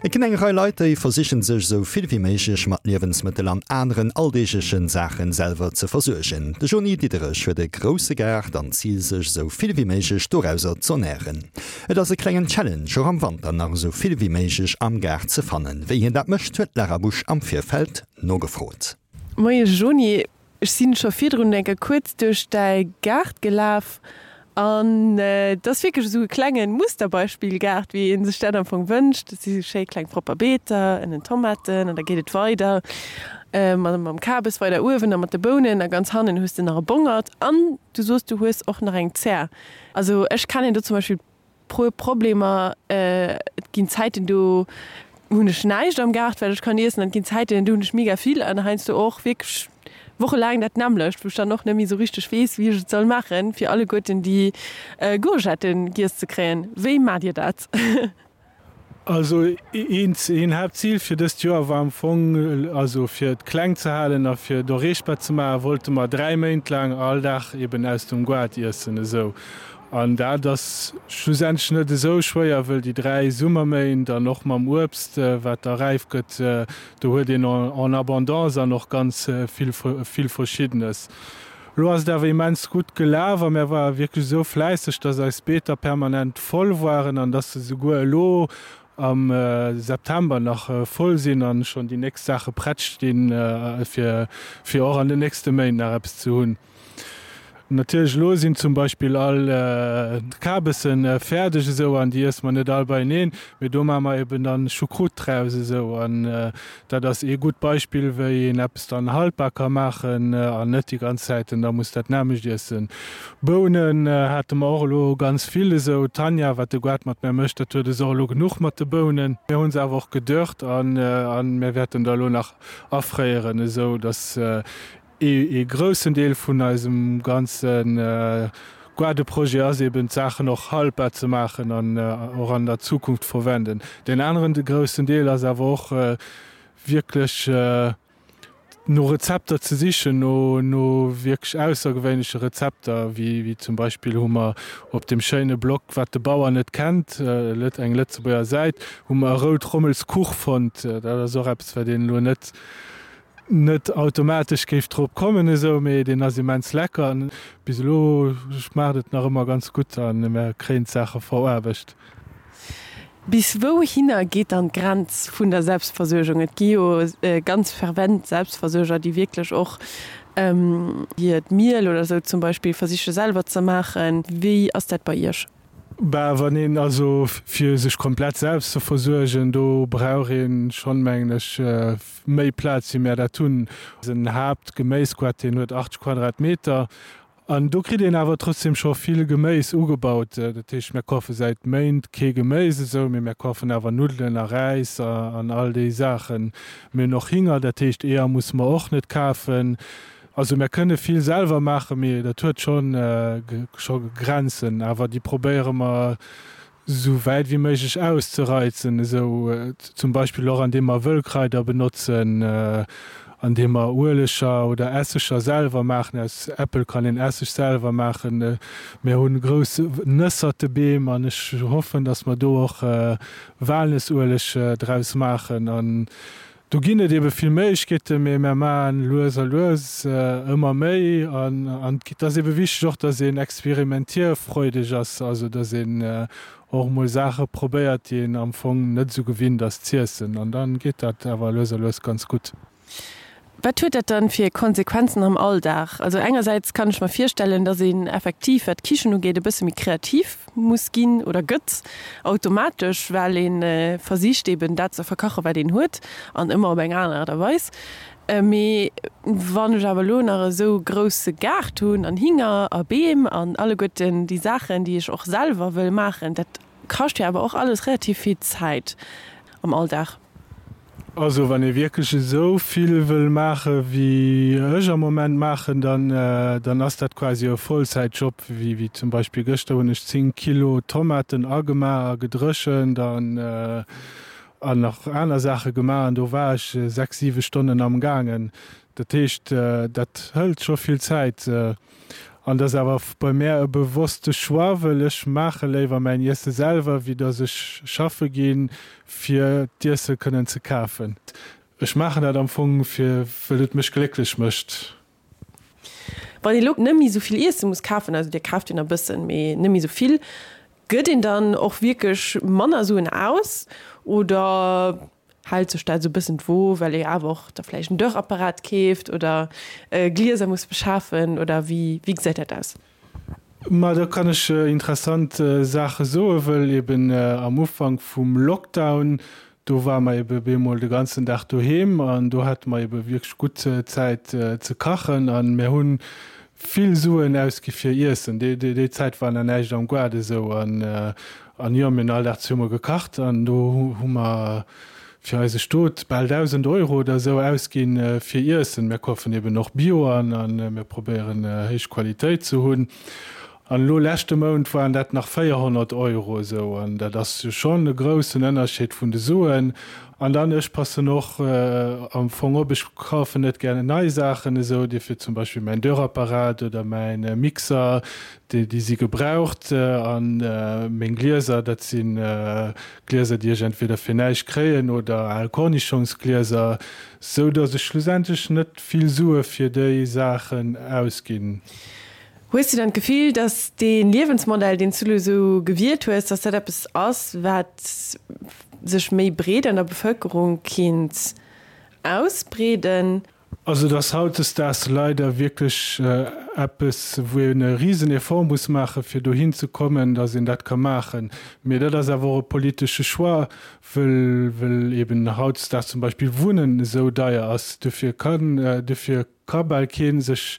Et ginn eng Rei Leit, déi versichen sech esou vill wéi méiglech mat Liewensmëttel an aneren alldeeglechen Saachen selwer ze versuergen. De Jony Diderich huet e grousse Gaart an d'Zil sech esou vill wéi méiglech dorauser z'ernären. Et ass e klengen Challenge och am Wanter nach esou vill wéi méiglech am Gaart ze fannen. Wéi hien dat mécht, huet d'Lara Busch am Virfeld nogefrot. Moie Jony, Ech sinn scho virdrun eng Kéier kuerz duerch däi Gaart gelaf an et ass wierklech esou e klengen Musterbeispill-Gaart, wéi ee sech dat am Fong wënscht. Et si schéi kleng propper Beeter, ënnen Tomaten an da geet et weider mam Kabes weider uewen a mat de Bounen a ganz hannen hues de nach e Bongert an du soos du hues och nach eng Zär. Also ech kennen do zum Beispill Puer Problemer, Et ginn Zäiten do hunn ech näischt am Gaart wat ech kann iessen an et ginn Zäiten do hunn ech mega vill an heiansdo och wierklech wochelaang dat nämmlecht, wou ech dann och net méi esou richteg weess wéi ech et soll maachen fir alleguerten déi Gourgetten giess ze kréien. Wéi maacht Dir dat? Also een Haaptzil fir dëst Joer war am Fong, also fir et kleng ze halen a fir et erreechbar ze maachen, wollte mer 3 Méint laang all Dag eben aus dem Goart iessen esou. An dat ass schlussendlech net esou schwéier, wëll déi 3 Summerméint an och mam Uebst wat da räif gëtt, do huet een en abondance an och ganz vill vill Verschiddenes. Lo ass et awer immens gutt gelaf a mär ware wierklech esou fläisseg, dass eis Beeter permanent voll waren an dass se souguer elo am September nach voll sinn an schonn déi nächst Saache prett stinn, fir fir och an den nächste Méint nach eppes ze hunn. Natierlech elo sinn zum Beispill all d'Kabessen fäerdeg esou an déi iesse mer net all beieneen, mee do maache mer eben dann Choucroute draus esou an Dat ass ee gutt Beispill, wéi een eppes dann haltbar ka maachen an net déi ganz Zäiten da muss dat nämmlecht iessen. Bounen hate mer och elo ganz vill esou. D'Tanja, wat de Goart mat mär mécht, dat huet es och elo genuch mat de Bounen. Mir hu se awer och gedörrt an mir wäerten der elo nach afréieren, esou datt Ee groussen Deel vun eisem ganze Gaardeprojet ass eben d'Saachen och haltbar ze maachen an och an der Zukunft verwenden. Deen aneren groussen Deel ass awer och wierklech no Rezepter ze sichen, no wierklech aussergewéinleche Rezepter, wéi zum Beispill hu mer op deem schéine Blog Wat de Bauer net kennt, eng Lëtzebuerger Säit, hu mer e Rout-Rommels-Kuch fonnt. Dat ass och eppes, wat een elo net net automatesch géif drop kommen esou, mee deen ass immens lecker an bis elo schmaacht et nach ëmmer ganz gutt an mär kréien d'Saache veraarbecht. Bis wouhinner geet dann d'Grenz vun der Selbstversuergung? Et gi jo ganz fervent Selbstversuerger, déi wierklech och hiert Miel oder esou zum Beispill versiche selwer ze maachen. Wéi ass dat bei Iech? Bah, wann een also fir sech komplett selbst ze versuergen, do brauch een schonn, mengen ech, méi Plaz wéi mär dat hunn. Eisen Haaptgeméisgoart, deen huet 80 Quadratmeter an do kritt een awer trotzdem scho vill Geméis ugebaut. Dat heescht, mär kafe säit Méint kee Geméis esou, mee mär kafen awer Nuddelen a Räis an all déi Saachen. Mir hunn och Hinger, dat heescht Eeër musse mer och net kafen. Also mär kënne vill selwer maachen, mee dat huet schonn scho Grenzen. Awer déi probéiere mer esou wäit wéi méiglech auszereizen, esou zum Beispill och andeem mer Wëllkraider benotzen, andeem mer Ueleger oder Esseger selwer maachen. Aus Äppel kann een Esseg selwer maachen. Mir hu grouss Nëssertebeem an ech hoffen, datt mer do och Walnëssueleg draus maachen. An Do ginn et ebe vill Méiglechkeeten, mee mär maachen lues a lues ëmmer méi. An et ass ebe wichteg och, datt een experimentierfreudeg ass, also datt een och emol Saache probéiert, déi een am Fong net esou gewinnt ass z'iessen. An da geet dat awer lues a lues ganz gutt. Wat huet dat dann fir Konsequenzen am Alldag? Also engersäits kann ech mer virstellen, dass een effektiv, wat d'Kichen ugeet, e bësse méi kreativ muss ginn oder gëtt automatesch, well ee versicht eben dat ze verkachen, wat een huet an ëmmer op eng aner Aart a Weis. Mee wann ech awer elo nach esou grousse Gaart hunn an Hinger a Beem an alleguerten déi Saachen, déi ech och selwer wëll maachen, dat kascht jo awer och alles relativ vill Zäit am Alldag. Also wann ee wierklech esou vill wëll maache wéi ech am Moment maachen, dann dann ass dat quasi e Vollzäitjob. Wéi wéi zum Beispill gëschter hunn ech 10 Kilo Tomaten agemaach a gedréchent an an nach aner Saache gemaach an do war ech 6, 7 Stonnen am gaangen. Dat heescht dat hëlt scho vill Zäit. An dat ass awer bei mär e bewosste Choix, wëll ech maache léiwer mäin Iesse selwer, wéi dass ech schaffe ginn, fir d'Iesse kënnen ze kafen. Ech maachen dat am Fong, fir wëll et mech glécklech mécht. Wann ee lo net méi esou vill Iesse muss kafen, also dir kaaft jo nach e bëssen, mee net méi esou vill, gëtt een dann och wierklech manner Suen aus oder hält sech dat esou e bëssen d'Wo, well ee awer och da vläicht en Dörrapparat keeft oder Glieser muss beschafen oder wéi wéi gesäit dat aus? Ma do kann ech interessant Saache soen, wëll eben am Ufank vum Lockdown, do ware mer ebe bemol de ganzen Dag doheem an do hate mer ebe wierklech gutt Zäit ze kachen an mir hu vill Suen ausgi fir Iessen. Déi Zäit war nach näischt am Gaart esou an an jo, mir hunn all Dag zesumme gekacht an do hu mer fir eise Stot bal 1.000 Euro oder esou ausginn fir Iessen. Mir kafen eben och Bio an a mir probéieren héich Qualitéit ze hunn. An elo leschte Mount waren dat nach 400 Euro esou an dat ass jo schonn e groussen Ënnerscheed vun de Suen. An dann, ech passen och am Fong op, ech kafen net gär nei Saachen esou, dofir zum Beispill mäin Dörrapparat oder mäin Mixer, déi si gebraucht. An meng Glieser, dat si Glieser, déi ech entweder fir näischt kréien oder al Kornischongsglieser, sou datt ech schlussendlech net vill Sue fir déi Saachen ausginn. Hues du dann d'Gefill, datt dee Liewensmodell, deen s du elo esou gewielt hues, datt dat eppes ass, wat sech méi breet an der Bevëlkerung kéint ausbreeden? Also et ass hautdesdaags leider wierklech eppes, wou een e risen Effort muss maachen, fir dohin ze kommen, datt een dat ka maachen. Mee dat ass awer och e politesche Choix, wëll, wëll eben hautdesdaags zum Beispill Wunnen esou deier ass. Dofir kann, dofir ka bal kee sech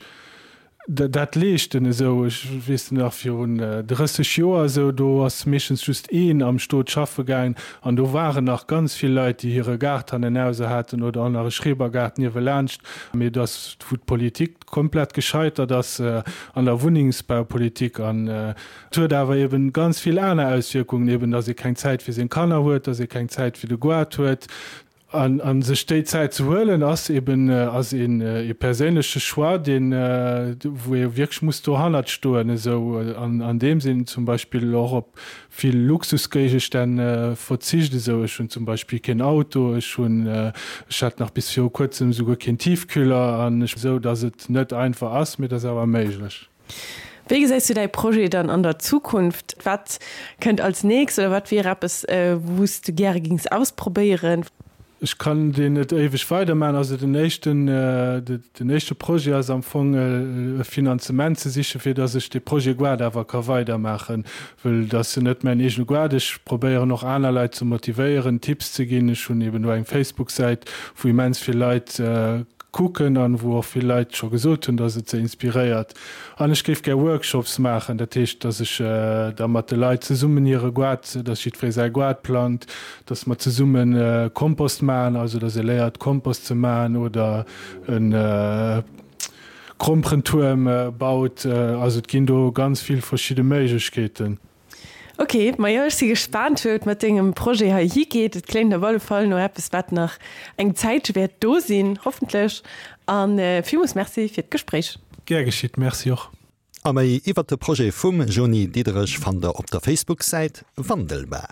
dat leeschten esou. Ech weess nach virun 30 Joer esou, do ass meeschtens just een am Stot schaffe gaangen an do waren nach ganz vill Leit, déi hire Gaart hannenauser haten oder och nach e Schrebergaart niewelaanscht. Mee et ass, wou d'Politik komplett gescheitert ass an der Wunnengsbaupolitik an et huet awer eben ganz vill aner Auswierkungen, eben datt ee keng Zäit fir seng Kanner huet, datt ee keng Zäit fir de Goart huet. An sech déi Zäit ze huelen, ass eben ass een ee perséinleche Choix, deen, wou ee wierklech muss dohannert stoen esou, an an deem sinn zum Beispill och op vill Luxusgéigestänn verzicht esou. Ech hunn zum Beispill keen Auto, ech hunn, ech hat nach bis viru kuerzem esouguer keen Tiefkühler an ech, esou datt et net einfach ass, mee et ass awer méiglech. Wéi gesäis du däi Projet dann an der Zukunft? Wat kënnt als nächst oder wat wier eppes, wou s du gäre gings ausprobéieren? Ech kann deen net éiweg weidermaachen. Also den éischten, den éischte Projet ass am Fong e Finanzement ze sichen, fir datt ech dee Projet Goart awer ka weidermaachen, wëll et ass jo net mäin eegene Goart. Ech probéieren och aner Leit ze motivéieren, Tipps ze ginn. Ech hunn eben do eng Facebook-Säit, wou immens vill Leit kucken an wou och vill Leit scho gesot hunn, dass et se inspiréiert. An ech géif gär Workshops maachen, dat heescht, dass ech da mat de Leit zesummen hire Goart, dass jiddweree säi Goart plangt, dass mer zesumme Kompost maachen, also dass ee léiert Kompost ze maachen oder e Gromperentuerm baut. Also et ginn do ganz vill verschidde Méiglechkeeten. Ok, majo ech si gespaant wou et mat dengem Projet hei higeet. Et kléngt op alle Fall no eppes wat nach eng Zäitche wäert do sinn, hoffentlech. An villmools Merci fir d'Gespréich. Gär geschitt, Merci och. A méi iwwert de Projet vum Joni Diederich fannt der op der Facebook-Säit Wandelbar.